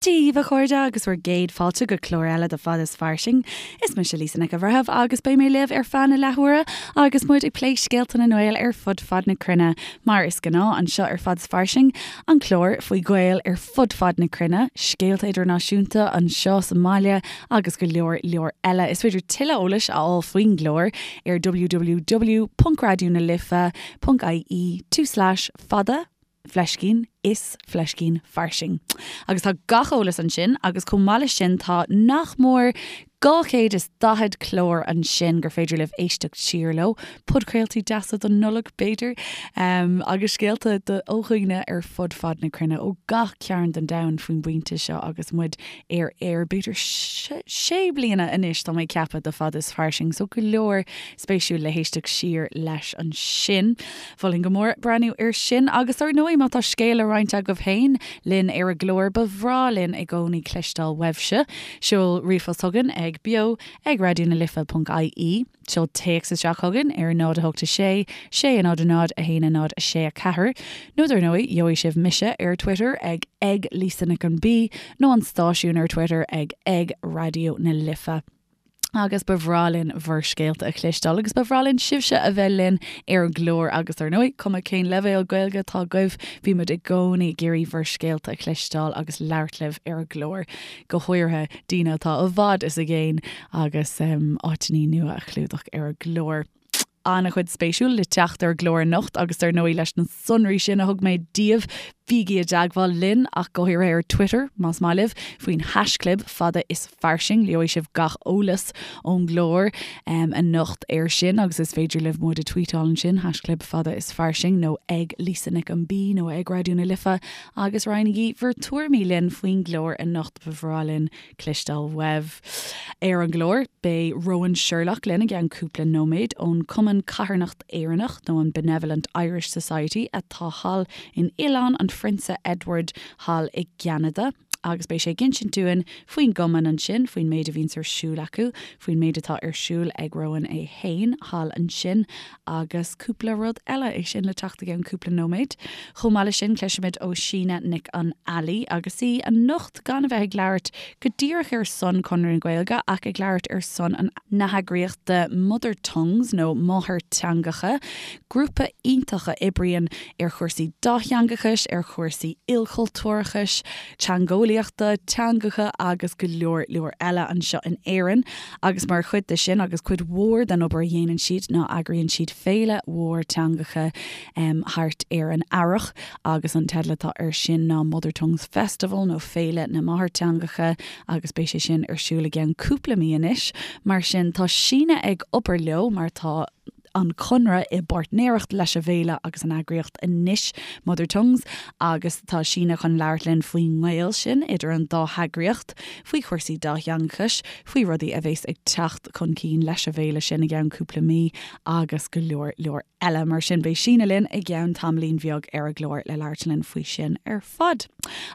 Dia daoibh a chairde agus bhur gcéad fáilte go clár eile de Fad is Fairsing. Is mise Lisa Nic an Bhreithimh agus beidh mé libh ar feadh na leathuaire agus muid ag plé scéalta na nGael ar fud fad na cruinne, mar is gnáth anseo ar Fad is Fairsing, an clár faoi Ghaeil ar fud fad na cruinne, scéalta idirnáisiúnta anseo sa mbaile agus go leor leor eile. Is féidir tuilleadh eolais a fháil faoin gclár ar www.raidionalife.ie tulslais fada fleiscín is fleiscín fairsing. Agus tá gach eolas ansin agus chomh maith leis sin tá nach mór 240 clár ansin gur féidir libh éisteacht siar leo, podchraoltaí deasa don Nollaig b'fhéidir, agus scéalta ó dhaoine ar fud fad na cruinne, ó gach cearn den domhan faoin bpointe seo agus muid ar aer b'fhéidir sé bliana anois tá mé ag ceapadh de Fad is Fairsing so go leor spéisiúil le héisteacht siar leis ansin. Mholfainn go mór breathnú air sin agus ar ndóigh má tá scéal le roinnt agaibh féin linn ar an gclár ba bhreá linn i gcónaí cloisteáil uaibhse. Seol ríomhphost chugainn ag beo ag raidió na life ponc ie, seol téacs isteach chugainn ar 0 8 6 6 0 0 1 0 6 4 nó dar ndóigh gheobhaidh sibh mise ar Twitter ag ag Lisa Nic an B nó an stáisiún ar Twitter ag ag Raidió na Life. Agus ba bhreá linn bhur scéalta a chloisteáil agus ba bhreá linn sibhse a bheith linn ar an gclár agus ar ndóigh, cuma cén leibhéal Gaeilge atá agaibh, bímid i gcónaí ag iarraidh bhur scéalta a chloisteáil agus labhairt libh ar an gclár, go háirithe daoine atá i bhfad is i gcéin agus áiteanna nua a chlúdach ar an gclár. An-chuid spéisiúil le teacht ar an gclár anocht agus dar ndóigh leis na sonraí sin a thug mé daoibh, bígí i dteagmháil linn ach go háirithe ar Twitter, más maith libh, faoin haischlib fada is fairsing. Gheobhaidh sibh gach eolas ón gclár anocht air sin agus is féidir libh muid a tweetáil ansin, haischlib fada is fairsing nó ag Lisa Nic an B nó ag Raidió na Life agus roinnigí bhur tuairimí linn faoin gclár anocht, ba bhreá linn cloisteáil uaibh. Ar an gclár, beidh Rowan Sherlock linn i gceann cúpla nóiméad ón Cumann Carthanacht Éireannach nó an Benevolent Irish Society atá thall in Oileán an Phrionsa Edward thall i gCeanada agus beidh sé ag insint dúinn faoin gcumann ansin, faoin méid a bhíonns ar siúl acu, faoin méid atá ar siúl ag Rowan é fhéin thall ansin agus cúpla rud eile, é sin le teacht i gceann cúpla nóiméad. Chomh maith leis sin, cloisfimid ó Síne Nic an Ailí agus í anocht gan a bheith ag labhairt go díreach ar son Conradh na Gaeilge ach ag labhairt ar son an na heagraíochta Mother Tongues nó Máthairteangacha, grúpa iontach a oibríonn ar chúrsaí dátheangachais, ar chúrsaí ilchultúrachais, teangeolaíochta, teangacha agus go leor leor eile anseo in Éirinn. Agus mar chuid de sin agus cuid mhór den obair a dhéanann siad ná eagraíonn siad féile mhór teangacha thart ar an Earrach agus an teideal atá air sin ná Mother Tongues Festival nó Féile na Máthairteangacha agus beidh sé sin ar siúl i gceann cúpla mí anois. Mar sin tá Síne ag obair leo mar tá an Conradh i bpáirtnéireacht leis an bhféile agus an eagraíocht anois, Mother Tongues, agus tá Síne chun labhairt linn faoin ngaol sin idir an dá heagraíocht, faoi chúrsaí dátheangachais, faoi rudaí a bheas ag teacht chun cinn leis an bhféile sin i gceann cúpla mí agus go leor leor eile. Mar sin, beidh Síne linn i gceann tamaillín bheag ar an gclár le labhairt linn faoi sin ar fad.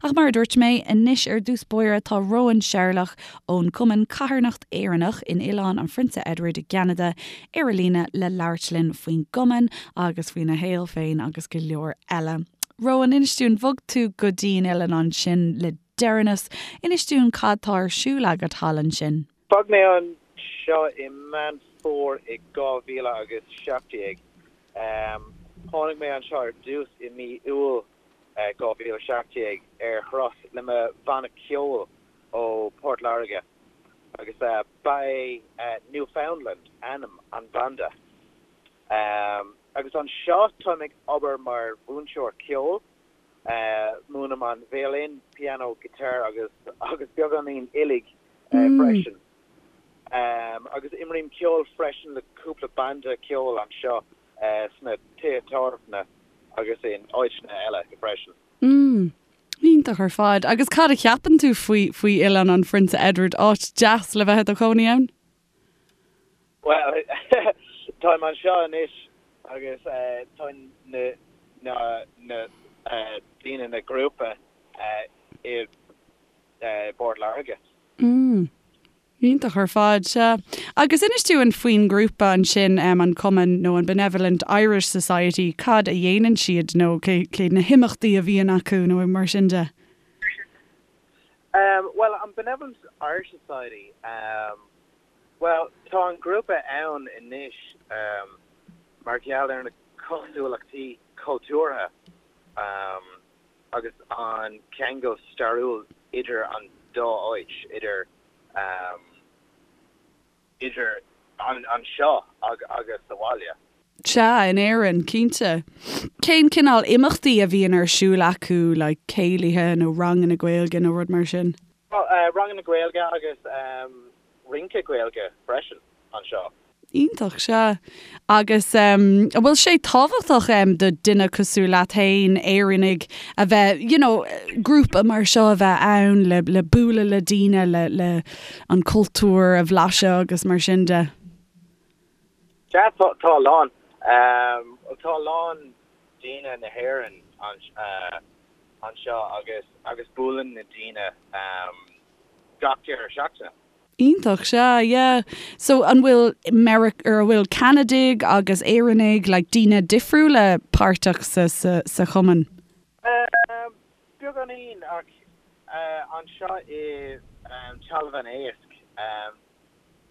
Ach mar a dúirt mé, anois ar dtús báire tá Rowan Sherlock ón gCumann Carthanacht Éireannach in Oileán an Phrionsa Edward i gCeanada ar an líne le labhairt linn faoin gcumann agus faoina shaol féin agus go leor eile. Rowan, inis dúinn, bhog tú go dtí an oileán ansin le deireanas. Inis dúinn cad tá ar siúl agat thall ansin. Bhog mé anseo i Meán Fómhair i 2017. Tháinig mé anseo ar dtús i mí Iúil 2017 ar thuras le mo bhanna ceoil ó Port Láirge agus ba é Newfoundland ainm an bhanda. Agus anseo táim ag obair mar mhúinteoir ceoil, múinim an veidhlín, pianó, guitar agus agus beagáinín uilig freisin. Agus imrím ceol freisin le cúpla banda ceoil anseo sna tithe tábhairne agus in áiteanna eile freisin. Mm. Iontach ar fad. Agus cad a cheapann tú faoi, faoi Oileán an Phrionsa Edward? Áit deas le bheith i do chónaí ann? Bhuel, táim anseo anois agus tá na, na, na daoine, na grúpa i bPort Láirge. Mm. Iontach ar fad, sea. Agus inis dúinn faoin ngrúpa ansin, an cumann nó an Benevolent Irish Society, cad a dhéanann siad nó cé, cé na himeachtaí a bhíonn acu nó mar sin de? Bhuel, an Benevolent Irish Society, bhuel, tá an grúpa ann anois mar gheall ar na cosúlachtaí cultúrtha agus an ceangal stairiúil idir an dá áit, idir idir anseo agus sa bhaile. Sea, in Éirinn, cinnte. Cén cineál imeachtaí a bhíonn ar siúl acu, like céilithe nó ranganna Gaeilge nó rud mar sin? Bhuel, ranganna Gaeilge agus rince Gaeilge freisin anseo. Iontach, sea. Agus an bhfuil sé tábhachtach do duine cosúil leat féin, Éireannaigh, a bheith, you know, grúpa mar seo a bheith ann le, le bualadh le daoine, le, le an cultúr a bhlaiseadh agus mar sin de? Sea, tá, tá a lán. Tá a lán daoine na hÉireann anseo agus, agus buaileann na daoine gach deireadh seachtaine. Iontach, sea, yeah. So an bhfuil Meiric, or an bhfuil Ceanadaigh agus Éireannaigh, like daoine difriúla páirteach sa, sa, sa chumann? Um, beagáinín ach uh, anseo i um, Talamh an Éisc um,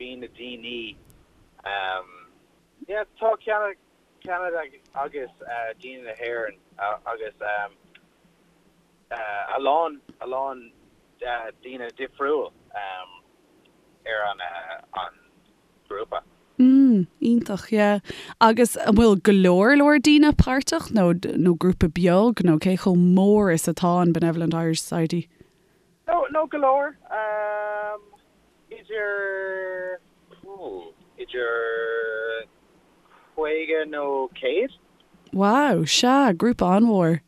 bíonn na daoine um, yeah, tá Ceanada, Ceanada agus uh, daoine na hÉireann uh, agus um, a lán, a lán daoine difriúil ar an grúpa. Mm, iontach, yeah. Agus an bhfuil go leor leor daoine páirteach nó, nó grúpa beag nó cé chomh mór is atá an Benevolent Irish Society? No, no go leor. Idir, idir 50 nó 100. Wow, sea, grúpa an-mhór.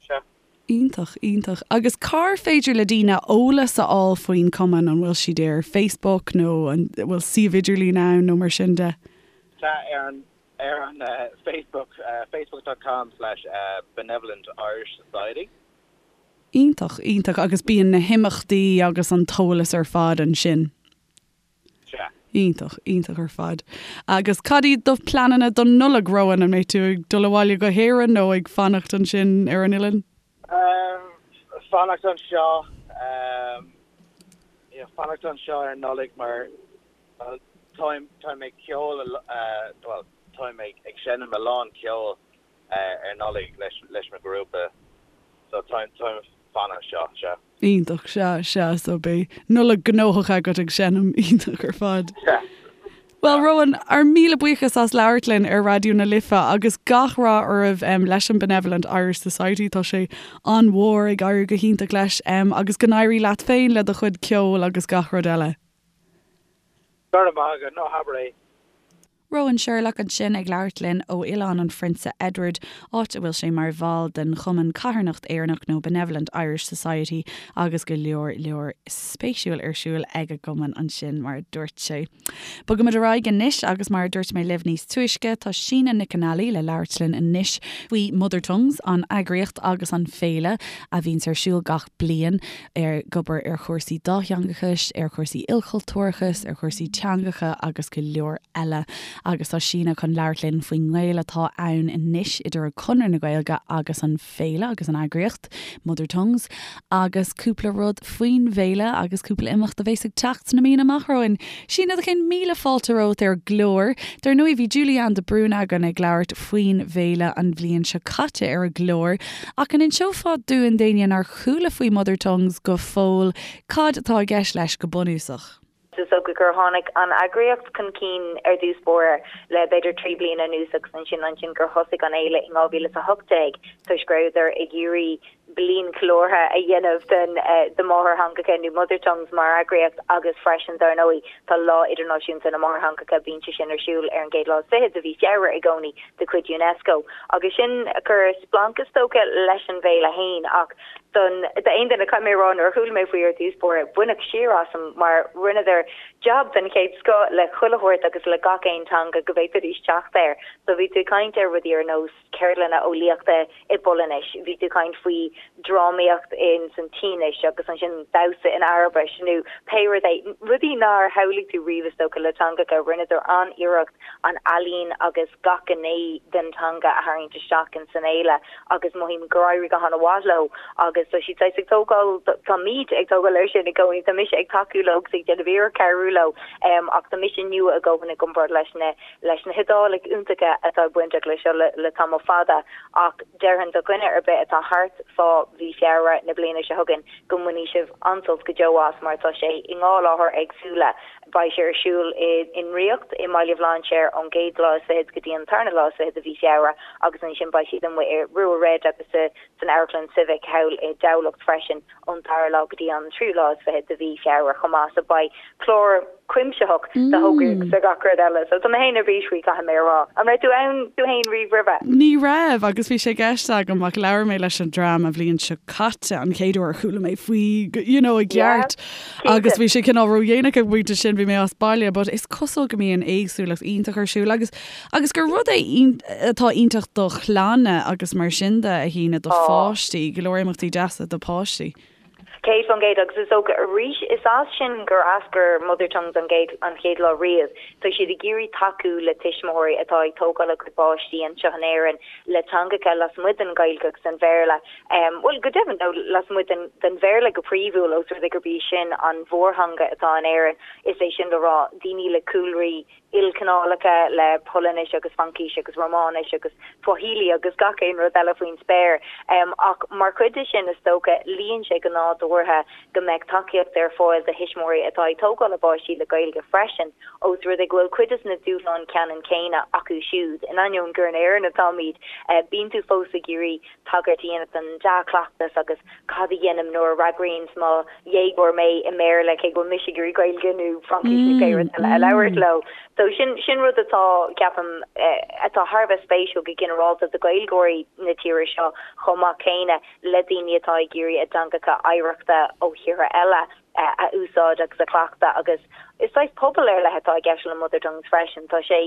Sea. Iontach, iontach. Agus cár féidir le daoine eolas a fháil faoin cumann? An bhfuil siad ar Facebook nó an bhfuil suíomh idirlín ann nó mar sin de? Sea, ar an, ar an Facebook, facebook dot com slash Benevolent Irish Society. Iontach, iontach. Agus bíonn na himeachtaí agus an t-eolas ar fad ansin? Sea. Iontach, iontach ar fad. Agus cad iad do pleananna don Nollaig, Rowan? An mbeidh tú ag dul abhaile go hÉirinn nó ag fanacht ansin ar an oileán? Fanacht anseo, yeah, fanacht anseo ar Nollaig mar, bhuel, táim, táim ag ceol, bhuel, táim ag, ag seinm a lán ceoil ar Nollaig leis, leis mo ghrúpa so táim, táim ag fanacht anseo, sea. Iontach, sea, sea, so beidh Nollaig gnóthach agat ag seinm, iontach ar fad. Sea. Bhuel, Rowan, ár míle buíochas as labhairt linn ar Raidió na Life agus gach rath oraibh leis an Benevolent Irish Society, tá sé an-mhór, ag éirí go hiontach leis, agus go n-éirí leat féin le do chuid ceoil agus gach rud eile. Go raibh maith agat, ná habair é. Rowan Sherlock ansin ag labhairt linn ó Oileán an Phrionsa Edward, áit a bhfuil sé mar bhall den Chumann Carthanacht Éireannach nó Benevolent Irish Society agus go leor leor spéisiúil ar siúl ag an gcumann ansin mar a dúirt sé. Bogaimid ar aghaidh anois agus mar a dúirt mé libh níos túisce tá Síne Nic an Ailí le labhairt linn anois faoi Mother Tongues, an eagraíocht agus an féile a bhíonns ar siúl gach bliain. ag obair ar chúrsaí dátheangachais, ar chúrsaí ilchultúrachais, ar chúrsaí teangacha agus go leor eile. Agus tá Síne chun labhairt linn faoin ngaol atá ann anois idir Conradh na Gaeilge agus an féile agus an eagraíocht, Mother Tongues, agus cúpla rud faoin bhféile agus cúpla imeacht a bheas ag teacht sna míonna amach romhainn. Síne, do chéad míle fáilte romhat ar an gclár. Dar ndóigh bhí Julie Ann de Brún againn ag labhairt faoin bhféile an bhliain seo caite ar an gclár, ach an inseofá dúinn d'éinne nár chuala faoi Mother Tongues go fóill, cad atá i gceist leis go bunúsach? Is dócha gur tháinig an eagraíocht chun cinn ar dtús báire le b'fhéidir 3 bliana anuas agus ansin ansin gur thosaigh an fhéile in 2018 toisc go rabhadar ag iarraidh bliain cheiliúrtha a dhéanamh den de máthairtheangacha nó Mother Tongues mar eagraíocht agus freisin dar ndóigh tá Lá Idirnáisiúnta na Máthairtheangacha bíonn sé sin ar siúl ar an gcéad lá is fiche de mhí Feabhra i gcónaí de chuid Unesco agus sin a chuir splanc is dócha leis an bhféile fhéin ach don d'aon duine caithfidh mé a rá nuair a chuala mé faoi ar dtús báire baineadh siar asam mar rinneadar jab den chéad scoth le chuile shórt agus le gach aon teanga go bhféadfaidís teacht air so bhí tú ag caint ar rudaí ar nós ceardlanna eolaíochta i bPolainnis bhí tú ag caint faoi. drámaíocht in san tSínis agus ansin damhsa in Araibis nó pé rud é, rudaí nár shamhlaigh tú riamh is dócha le teangacha. Rinneadar an-iarracht an ealaín agus gach gné den teanga a tharraingt isteach in san fhéile agus mothaím gur éirigh go han-mhaith leo agus tá siad saghas ag tógáil, táimid ag tógáil air sin i gcónaí, tá mise ag tacú leo agus ag déanamh iarracht cabhrú leo ach tá mise nua a dhóthain i gcomparáid leis na leis na hIodálaigh iontacha atá bainteach leis seo le tamall fada ach déarfainn do dhuine ar bith atá thart fá mhí Feabhra na bliana seo chugainn go mbainfidh sibh an-sult go deo as mar tá sé i ndhá láthair éagsúla. Beidh sé ar siúl i nDraíocht i mBaile Bhlainséir ón gcéad lá is fichead go dtí an tarna lá is fichead de mhí Feabhra agus ansin beidh siad amuigh i Rua Red agus sa san Amharclann Civic thall i dTamhlacht freisin ón dara lá go dtí an tríú lá is fichead de mhí Feabhra chomh maith. So beidh clár cuimsitheach de thograí agus de gach rud eile. So tá mé féin ar bís faoi, caithfidh mé a rá. An raibh tú ann tú féin riamh roimhe? Ní raibh agus bhí sé i gceist agam ach labhair mé leis an dream an bhliain seo caite, an chéad uair a chuala mé faoi you know i gceart agus bhí sé cineál ródhéanach ag an bpointe sin, bhí mé as baile but is cosúil go mbíonn éagsúlacht iontach ar siúl agus Agus gur rud é atá iontach do chlanna agus mar sin de, a Shíne, do pháistí, go leor imeachtaí deasa do pháistí. 100% agus is dócha arís is as sin gur eascair Mother Tongues an gcéad an chéad lá riamh. Tá siad ag iarraidh tacú le tuismitheoirí atá ag tógáil a gcuid páistí anseo in Éirinn le teangacha lasmuigh den Ghaeilge agus den Bhéarla. Bhuel, go deimhin, nó lasmuigh den den Bhéarla go príomhúil ós rud é gurb í sin an mhórtheanga atá in Éirinn, is é sin le rá daoine le cúlraí ilchineálacha le Polainnis agus Fraincis agus Rómáinis agus Swahili agus gach aon rud eile faoin spéir. Ach mar chuid de sin, is dócha, luíonn sé go nádúrtha go mbeadh tacaíocht ar fáil do thuismitheoirí atá ag tógáil a bpáistí le Gaeilge freisin, ós rud é go bhfuil cuid de na dúshláin ceannann céanna acu siúd. In ainneoin gur in Éirinn atáimid, bíonn tú fós ag iarraidh tagairt a dhéanamh don dea-chleachtas agus cad a dhéanaim nuair a fhreagraíonns mo dhéagóir mé i mBéarla cé go bhfuil mise ag iarraidh Gaeilge nó Fraincis nó pé rud eile a labhairt leo. So sin, sin rud atá, ceapaim, atá thar a bheith spéisiúil go ginearálta do Ghaeilgeoirí na tíre seo chomh maith céanna le daoine atá ag iarraidh a dteangacha oidhreachta ó thíortha eile a úsáid agus a chleachtadh agus is saghas pobal ar leith atá i gceist le Mother Tongues freisin. Tá sé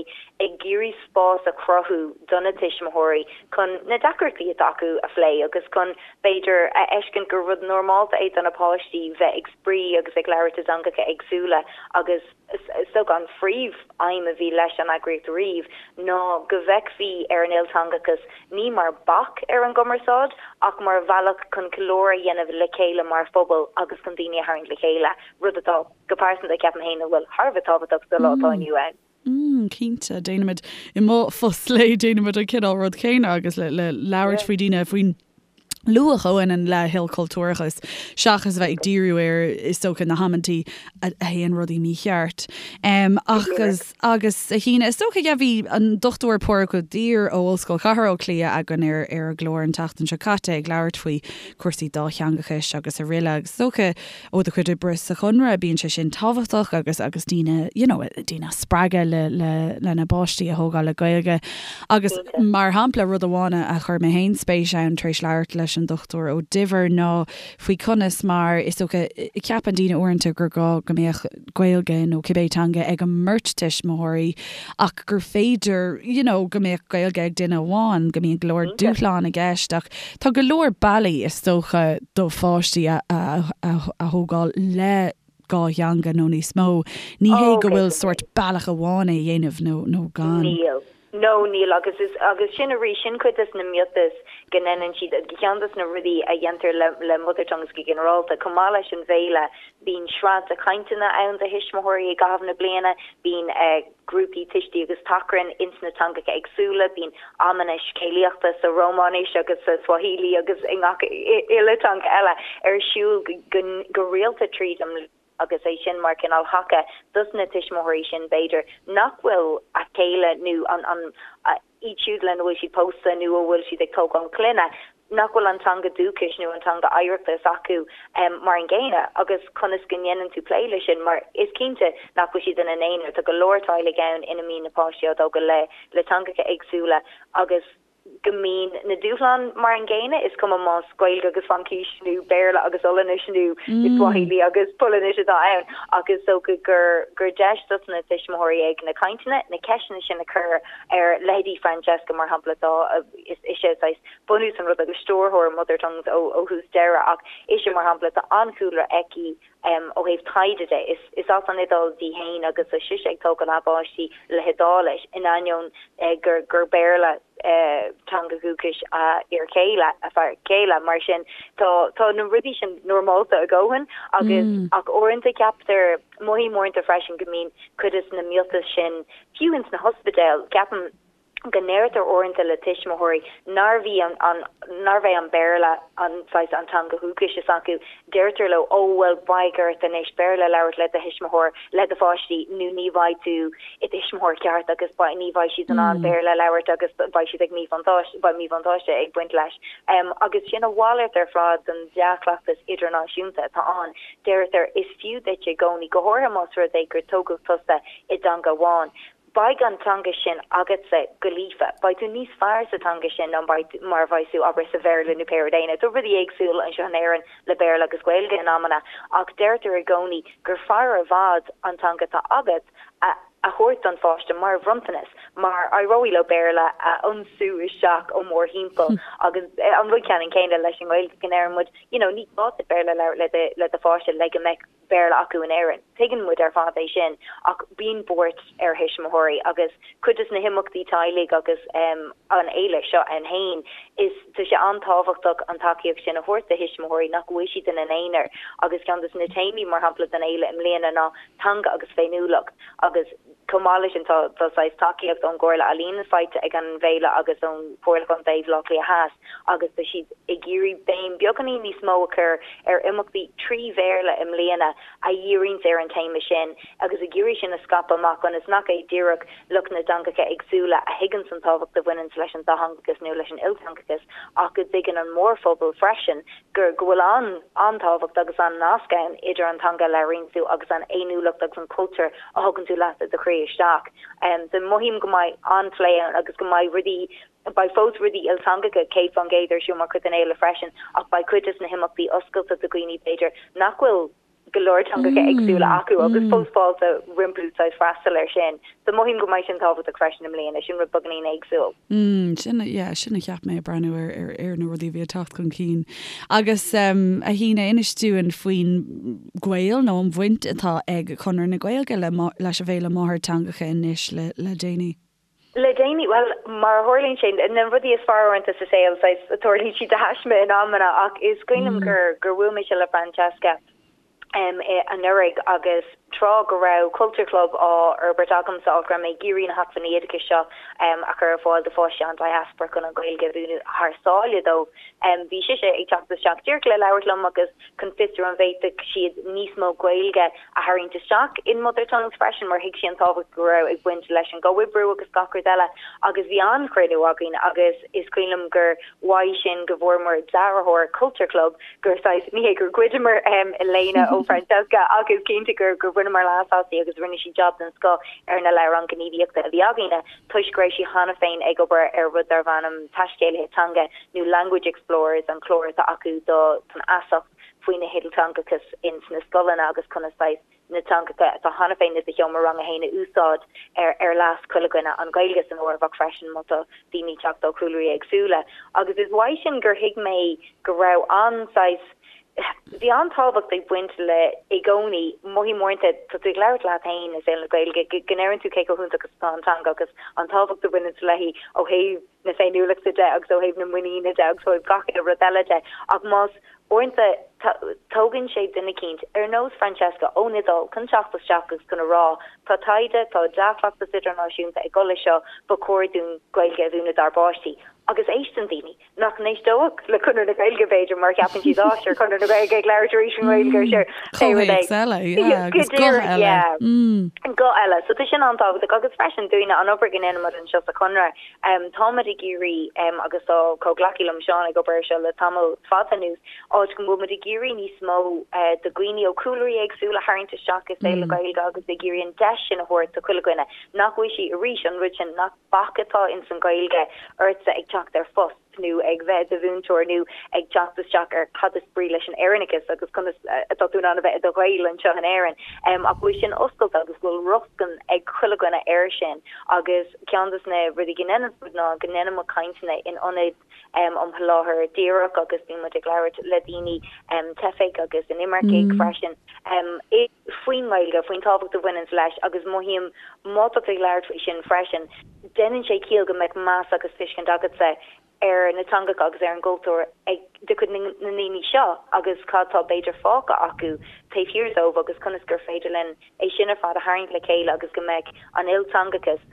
ag iarraidh spás a chruthú do na tuismitheoirí chun na deacrachtaí atá acu a phlé agus chun, b'fhéidir, a fheiscint gur rud normálta é do na páistí bheith ag spraoi agus ag labhairt i dteangacha éagsúla agus is dócha an phríomh-aidhm a bhí leis an eagraíocht riamh ná go bhfeicfí ar an ilteangachas ní mar bac ar an gcumarsáid ach mar bhealach chun ceiliúradh a dhéanamh le chéile mar phobal agus chun daoine a tharraingt le chéile, rud atá, go pearsanta, ceapaim féin, a bhfuil thar a bheith tábhachtach sa lá atá inniu ann. Mm, cinnte, déanaimid, i mo phost lae, déanaimid an cineál rud céanna agus le, le labhairt faoi daoine faoin luach a bhaineann le hilchultúrachas seachas a bheith ag díriú ar, is dócha, na hamantaí a théann rudaí mícheart. Agus, agus a Shíne, is dócha, yeah, bhí an Dr Pádraig Ó Duibhir ó Ollscoil Chathair Átha Cliath againn ar ar an gclár an tseachtain seo caite ag labhairt faoi chúrsaí dátheangachais agus araile agus is dócha ó do chuid oibre sa Chonradh bíonn sé sin tábhachtach agus agus daoine, you know, daoine a spreagadh le le lena bpáistí a thógáil le Gaeilge agus mar shampla rud amháin a chuir mé féin spéis ann tar éis labhairt leis an Dr Ó Duibhir ná faoi conas mar, is dócha, ceapann daoine uaireanta gur gá go mbeadh Gaeilge nó cibé teanga ag an mbeirt tuismitheoirí ach gur féidir you know go mbeadh Gaeilge ag duine amháin, go mbíonn go leor dúshlán i gceist ach tá go leor bealaí is dócha do pháistí a a thógáil le dhá theanga nó níos mó. Ní hé go bhfuil sórt bealach amháin é a dhéanamh nó nó gan. Níl. No, níl, agus is, agus sin arís, sin cuid des na miotais go ndeineann siad, ceann des na rudaí a dhéantar le, le Mother Tongues go ginearálta, chomh maith leis an bhféile, bíonn sraith de chainteanna ann do thuismitheoirí i gcaitheamh na bliana, bíonn grúpaí tuistí agus tachrainn ins na teangacha éagsúla, bíonn amanna scéalaíochta sa Rómáinis agus sa Swahili agus i ngach uile teanga eile ar siúl go, go rialta tríd an mbliain. agus é sin mar cineál thaca dos na tuismitheoirí sin, b'fhéidir, nach bhfuil a chéile nó an, an, iad siúd lena bhfuil siad pósta nó a bhfuil siad ag tógáil clainne, nach bhfuil an teanga dúchais nó an teanga oidhreachta s'acu mar an gcéanna agus conas go ndéanann tú plé leis sin mar is cinnte nach bhfuil siad ina n-aonar, tá go leor teaghlaigh ann ina mbíonn na páistí á dtógáil le, le teangacha éagsúla agus. go mbíonn na dúshláin mar an gcéanna, is cuma más Gaeilge agus Fraincis nó Béarla agus Ollainnis nó Swahili agus Polainnis atá ann, ach is dócha gur gur deis dos na tuismitheoirí ag na cainteanna na ceisteanna sin a chur ar leithéidí Francesca mar shampla atá is ise saghas bunús an rud agus stiúrthóir Mother Tongues ó ó thús deireadh ach ise mar shampla tá an-chúlra aici Ó thaobh taighde de, is as an Iodáil di féin agus tá sise ag tógáil a páistí le hIodáilis, in ainneoin gur Béarla teanga dhúchais a fhir chéile, a fear céile. Mar sin, tá tá na rudaí sin normálta a dhóthain agus ach uaireanta ceaptar, mothaím uaireanta freisin go mbíonn cuid de na miotais sin, fiú ins na hospidéil, ceapaim, go ndeirtear uaireanta le tuismitheoirí nárbh í an an nárbh é an Béarla an saghas an teanga dhúchais s'acu, deirtear leo ó bhuel beidh ort anois Béarla a labhairt le do thuismitheoir, le do pháistí nó ní bheidh tú i do thuismitheoir ceart agus beidh ní bheidh siad in ann Béarla a labhairt agus beidh siad ag míbhuntáiste beidh míbhuntáiste ag baint leis. Agus sin a mhalairt ar fad den dea-chleachtas idirnáisiúnta atá ann. Deirtear is fiú duit i gcónaí, go háirithe más rud é gur tógadh tusa i dteanga amháin, Beidh an teanga sin agatsa go líofa. Beidh tú níos fearr sa teanga sin ná mar a bheidh tú, abair, sa Bhéarla nó pé rud é. Now, tá rudaí éagsúil anseo in Éirinn le Béarla agus Gaeilge in amanna, ach deirtear i gcónaí gur fearr i bhfad an teanga atá agat a thabhairt don pháiste mar bhronntanas, mar éireoidh leo Béarla a ionsú isteach ó mórthimpeall. Agus an rud ceannann céanna leis an nGaeilge, go ndeireann muid, you know, ní gá duit Béarla a labhairt le le do pháiste le go mbeadh Béarla acu in Éirinn. Tuigeann muid ar fad é sin ach bíonn buairt ar thuismitheoirí agus cuid de na himeachtaí teaghlaigh agus an fhéile seo ann féin, is tá sé an-tábhachtach an tacaíocht sin a thabhairt do thuismitheoirí nach bhfuil siad ina n-aonar agus ceann de na téamaí mar shampla don fhéile i mbliana ná teanga agus féiniúlacht agus chomh maith leis sin tá tá saghas tacaíocht ón gComhairle Ealaíon faighte ag an bhféile agus ón Chomhairle Contae Bhaile Átha Cliath Theas agus tá siad ag iarraidh béim beagáinín níos mó a chur ar imeachtaí trí Bhéarla i mbliana a dhíríonns ar an téama sin agus ag iarraidh sin a scaipeadh amach ionas nach é díreach lucht na dteangacha éagsúla a thuigeanns an tábhacht a bhaineanns leis an dátheangachas nó leis an ilteangachas ach go dtuigeann an mórphobal freisin gur go bhfuil an an-tábhacht agus an-nasc ann idir an teanga a labhraíonn tú agus an fhéiniúlacht agus an cultúr a thugann tú leat i do chroí isteach. So mothaím go mbeidh an-phlé ann agus go mbeidh rudaí, beidh fós rudaí ilteangacha 100% ar siúl mar chuid den fhéile freisin ach beidh cuid de na himeachtaí oscailte do dhaoine b'fhéidir nach bhfuil go leor teangacha éagsúla acu agus fós fáilte rompu saghas freastal air sin. So mothaím go mbeidh sin tábhachtach freisin i mbliana, sin rud beagáinín éagsúil. Mm, sin, yeah, sin a cheap mé ag breathnú ar, ar, ar na rudaí a bhí ag teacht chun cinn. Agus um, a Shíne, inis dúinn faoin ghaol nó an bhaint atá ag Conradh na Gaeilge le, leis an bhFéile Máthairtheangacha anois le, le déanaí. Le déanaí, bhuel, mar a tharlaíonn sé, na rudaí is fearr uaireanta sa saol, saghas, tarlaíonn siad de thaisme in amanna, ach is cuimhin liom gur, gur bhuail mise le Francesca em anuraidh agus tráth go raibh Culture Club á fhorbairt agamsa, áit go raibh mé ag iarraidh na hacmhainní oideachais seo em a chur ar fáil do pháistí an diaspora chun an Ghaeilge a mhúineadh thar sáile dóibh. Em bhí sise ag teacht isteach díreach le labhairt liom agus chun fiosrú an bhféadfadh siad níos mó Gaeilge a tharraingt isteach in Mother Tongues freisin mar thuig sí an tábhacht go raibh ag baint leis an gcomhoibriú agus gach rud eile agus bhí an-chruinniú againn agus is cuimhin liom gur uaidh sin go bhfuaireamar dearthóir Culture Club gur saghas, ní hé gur ghoideamar léine ó Francesca ach is cinnte gur gur bhaineamar leas aisti agus rinne sí jab den scoth ar na leabhráin gníomhaíochta a bhí againne toisc go raibh sí cheana féin ag obair ar rud darbh ainm Taiscéalaithe Teanga nó Language Explorers, an clár atá acu don fheasacht faoina hilteangachas ins na scoileanna agus conas saghas na teangacha atá cheana féin i do sheomra ranga fhéin a úsáid ar ar leas chuile dhuine, an Ghaeilge san áireamh ach freisin má tá daoine ag teacht ó chúlraí éagsúla. Agus is uaidh sin gur thuig mé go raibh an saghas, bhí an-tábhacht ag baint le i gcónaí, mothaím uaireanta, tá tú ag labhairt leat féin i saol na Gaeilge, go ndeireann tú cé chomh hiontach is atá an teanga agus an tábhacht a bhaineanns léi ó thaobh na féiniúlachta de agus ó thaobh na muiníne de agus ó thaobh gach uile rud eile de ach más uaireanta tógann sé duine eicínt ar nós Francesca ón Iodáil chun teacht isteach agus chun a rá tá taighde, tá dea-chleachtas idirnáisiúnta ag dul leis seo, ba chóir dúinn Gaeilge a mhúineadh dár bpáistí. Agus éisteann daoine nach n-éisteodh le Conradh na Gaeilge b'fhéidir mar ceapann siad á sure Conradh na Gaeilge ag labhairt arís i nGaeilge sure pé rud é. Comhthéacs eile, yeah, agus guth eile. Yeah. Guth eile. So tá sin an-tábhachtach agus freisin dúinne an obair go ndéanann muid anseo sa Chonradh Táimid ag iarraidh, agus tá comhghleacaí liom, Seán, ag obair air seo le tamall fada anuas, áit go bhfuil muid ag iarraidh níos mó de dhaoine ó chúlraí éagsúla a tharraingt isteach i saol na Gaeilge agus ag iarraidh an deis sin a thabhairt do chuile dhuine, nach bhfuil sí, arís, an rud sin, nach bac atá ins an Ghaeilge ortsa ag teacht. teacht ar phost nó ag bheith i do mhúinteoir nó ag teacht isteach ar cad is brí leis an Éireannachas agus conas atá tú in ann a bheith i do Ghael anseo in Éirinn. Ach go bhfuil sin oscailte agus go bhfuil rochtain ag chuile dhuine air sin agus ceann des na rudaí go ndéanann muid ná go ndéanann muid cainteanna in ionaid um sholáthar díreach agus bíonn muid ag labhairt le daoine, teifigh agus inimircigh freisin, faoin nGaeilge, faoin tábhacht a bhaineanns leis agus mothaím má tá tú ag labhairt faoi sin freisin, déanann sé ciall go mbeadh meas agus tuiscint agatsa ar na teangacha agus ar an gcultúr ag de chuid na ndaoine seo agus cad tá b'fhéidir fágtha acu taobh thiar dóibh agus conas gur féidir linn é sin ar fad a tharraingt le chéile agus go mbeadh an ilteangachas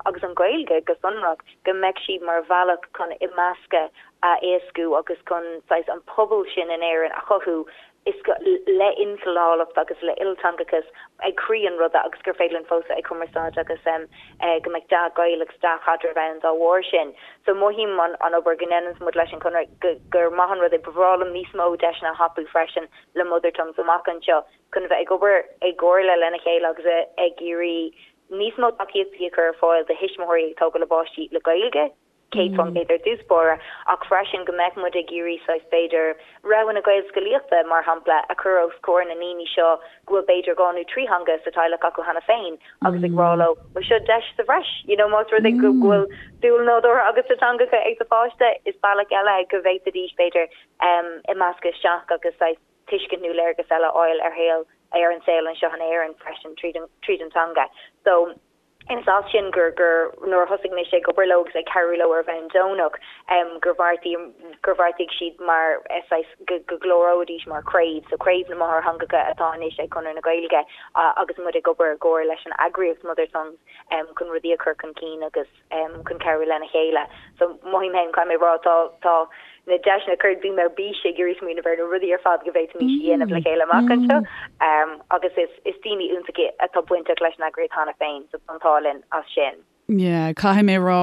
agus an Ghaeilge go sonrach, go mbeadh sí mar bhealach chun imeascadh a éascú agus chun saghas an pobal sin in Éirinn a chothú is go le ilchineálacht agus le ilteangachas ag croí an ruda agus gur féidir linn fós bheith ag cumarsáid agus go mbeadh dea-ghaol agus dea-chaidreamh ann dá bharr sin. So mothaím an an obair go ndéananns muid leis an Chonradh go gur maith an rud é. Ba bhreá liom níos mó deiseanna a thapú freisin le Mother Tongues amach anseo chun a bheith ag obair i gcomhairle lena chéile agus ag iarraidh níos mó tacaíochtaí a chur ar fáil do thuismitheoirí ag tógáil a bpáistí le Gaeilge, 100% ar dtús báire, ach freisin go mbeadh muid ag iarraidh saghas b'fhéidir roghanna Gaelscolaíochta, mar shampla, a chur os comhair na ndaoine seo go bhfuil b'fhéidir dhá nó trí theanga sa teaghlach acu cheana féin agus ag rá leo, bhuel seo deis sa bhreis, you know más rud é go bhfuil dúil nádúrtha agat sa teangacha ag do pháiste, is bealach eile go bhféadfaidís b'fhéidir imeascadh isteach agus saghas. tuiscint nó léargas eile a fháil ar shaol, ar an saol anseo in Éirinn freisin tríd an, tríd an teanga. So, is as sin gur, gur, nuair a thosaigh mise ag obair leo agus ag cabhrú leo ar bhonn deonach, gur bheartaigh, gur bheartaigh siad mar, saghas, go, go gcláróidís mar chraobh, so Craobh na Máthairtheangacha atá anois ag Conradh na Gaeilge agus muid ag obair i gcomhar leis an eagraíocht Mother Tongues chun rudaí a chur chun cinn agus. chun cabhrú lena chéile. So mothaím féin, caithfidh mé a rá, tá, tá na deiseanna curtha, bím ar bís ag iarraidh smaoineamh ar na rudaí ar fad go bhféadfaimis a dhéanamh le chéile amach anseo. Agus is, is daoine iontacha atá bainteach leis an eagraíocht cheana féin, so tá an t-ádh linn as sin. Yeah, caithfidh mé a rá,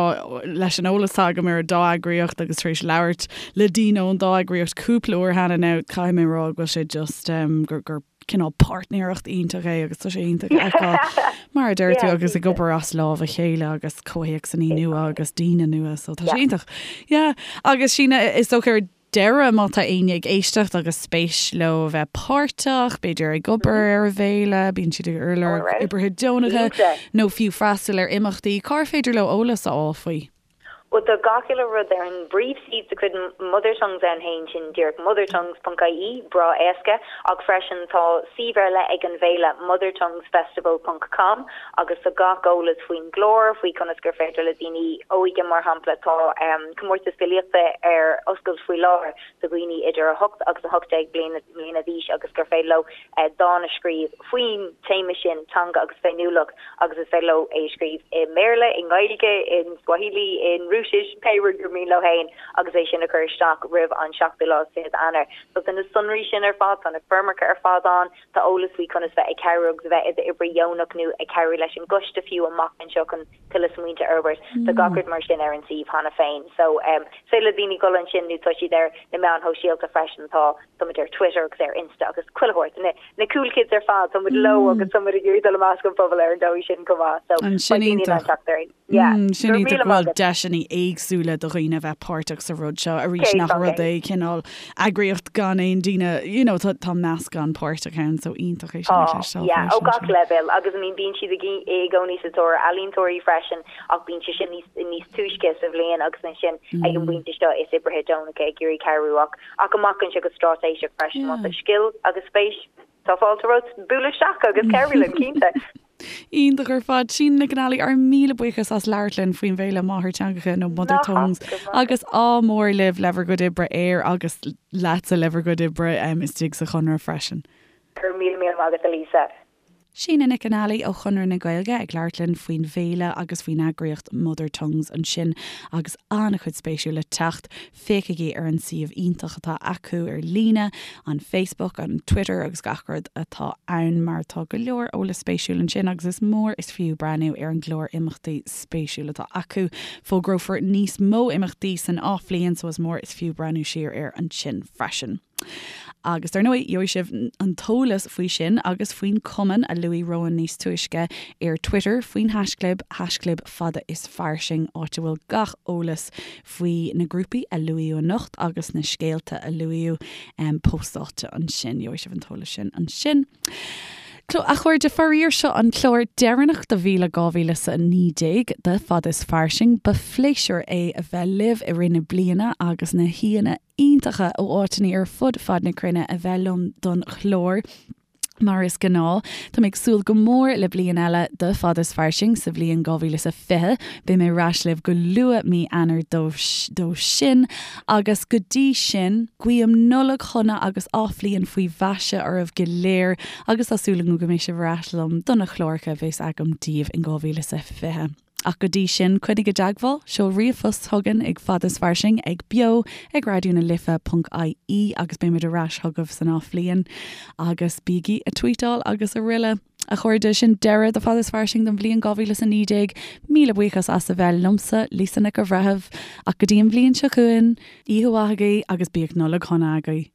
leis an eolas atá agam ar an dá eagraíocht agus tar éis labhairt le daoine ón dá eagraíocht cúpla uair cheana now, caithfidh mé a rá go bhfuil sé just, gur, gur cineál páirtnéireacht iontach é agus tá sé iontach a fheiceáil mar a deir tú agus ag obair as lámh a chéile agus comhthéacsanna nua agus daoine nua so tá sé iontach. Yeah agus Síne is dócha ar deireadh má tá éinne ag éisteacht agus spéis leo a bheith páirteach, b'fhéidir ag obair ar an bhféile, bíonn siad ag lorg oibrithe deonacha nó fiú freastal ar imeachtaí, cár féidir leo eolas a fháil faoi? Bhuel, tá gach uile rud ar an bpríomhshuíomh de chuid Mother Tongues ann féin, sin díreach mothertongues.ie, breá éasca, ach freisin tá suíomh ar leith ag an bhféile, mothertonguesfestival ponc com, agus tá gach eolas faoin gclár, faoi conas gur féidir le daoine óige, mar shampla, tá comórtas filíochta ar oscailt faoi láthair do dhaoine idir 8 agus 18 bliana d'aois agus gur féidir leo dán a scríobh faoin téama sin, teanga agus féiniúlacht. agus is féidir leo é a scríobh i mBéarla, i nGaeilge, in Swahili, in Rúisis, pé rud gur mian leo féin agus é sin a chur isteach roimh an seachtú lá is fichead Eanáir. So tá na sonraí sin ar fad, tá na foirmeacha ar fad ann, tá eolas faoi conas bheith ag cabhrú agus a bheith i d'oibrí dheonach nó ag cabhrú leis an gcoiste fiú amach anseo chun tuilleadh smaointe a fhorbairt. Tá gach rud mar sin ar an suíomh cheana féin. So is féidir le daoine dul ansin nó tá siad ar na meáin shóisialta freisin, tá tá muid ar Twitter agus ar Insta agus chuile shórt. Na na cool kids ar fad, tá muid leo agus tá muid ag iarraidh dul i measc an phobail ar an dóigh sin chomh maith. So Sin beidh daoine in ann iontach. teacht orainn. Yeah. Sin Go raibh iontach míle go maith bhfuil agat. deiseanna éagsúla do dhaoine a bheith páirteach sa rud seo arís nach rud é cineál eagraíocht gan aon daoine you know tá tá meascán páirteach ann so iontach é sin a Tá, chloisteáil yeah, ó freisin gach sin. leibhéal agus I mean bíonn siad ag i gcónaí sa tóir ealaíontóirí freisin ach bíonn sé sin níos níos túisce sa bhliain agus ansin ag an bpointe seo is oibrithe deonacha ag iarraidh cabhrú ach Ach amach anseo go straitéiseach freisin, má tá scil agus spéis, tá fáilte romhat bualadh isteach agus cabhrú linn, cinnte. Iontach ar fad. Síne Nic an Ailí, ár míle buíochas as labhairt linn faoin bhféile Máthairtheangacha nó Mother Tongues agus ádh mór libh le bhur gcuid oibre air agus leatsa le bhur gcuid oibre istigh sa Chonradh freisin. Go raibh míle míle maith agat a Lisa. Síne Nic an Ailí ó Chonradh na Gaeilge ag labhairt linn faoin bhféile agus faoin eagraíocht Mother Tongues ansin agus an-chuid spéisiúil le teacht. Féachaigí ar an suíomh iontach atá acu ar líne, an Facebook, an Twitter agus gach rud atá ann mar tá go leor eolas spéisiúil ansin agus is mór is fiú breathnú ar an gclár imeachtaí spéisiúil atá acu. Fógrófar níos mó imeachtaí san athbhliain so is mór is fiú breathnú siar air ansin freisin. Agus dar ndóigh, gheobhaidh sibh an t-eolas faoi sin agus faoin cumann a luaigh Rowan níos túisce ar Twitter faoin haischlib, haischlib fada is fairsing, áit a bhfuil gach eolas faoi na grúpaí a luaíodh anocht agus na scéalta a luaíodh póstáilte ansin. Gheobhaidh sibh an t-eolas sin ansin. A chairde, faraor seo an clár deireanach do bhliain 2019 de Fada is Fairsing. Ba phléisiúr é a bheith libh i rith na bliana agus na haíonna iontacha ó áiteanna ar fud fad na cruinne a bheith liom don chlár. Mar is gnáth, tá mé ag súil go mór le bliain eile de Fada is Fairsing sa bhliain 2020. Beidh mé ar ais libh go luath mí Eanáir dó sin agus go dtí sin, guím Nollaig shona agus athbhliain faoi mhaise oraibh go léir agus tá súil agam go mbeidh sibh ar ais liom do na cláracha a bheas agam daoibh in 2020. Ach go dtí sin, coinnigh i dteagmháil, seol ríomhphost chugainn ag fada is fairsing ag beo ag raidió na life ponc ie agus beimid ar ais chugaibh san athbhliain. Agus bígí ag tweetáil agus araile. A chairde, sin deireadh de Fada is Fairsing don bhliain 2019. Míle buíochas as a bheith liomsa, Lisa Nic an Bhreithimh. Ach go dtí an bhliain seo chugainn, oíche mhaith agaibh agus bíodh Nollaig shona agaibh.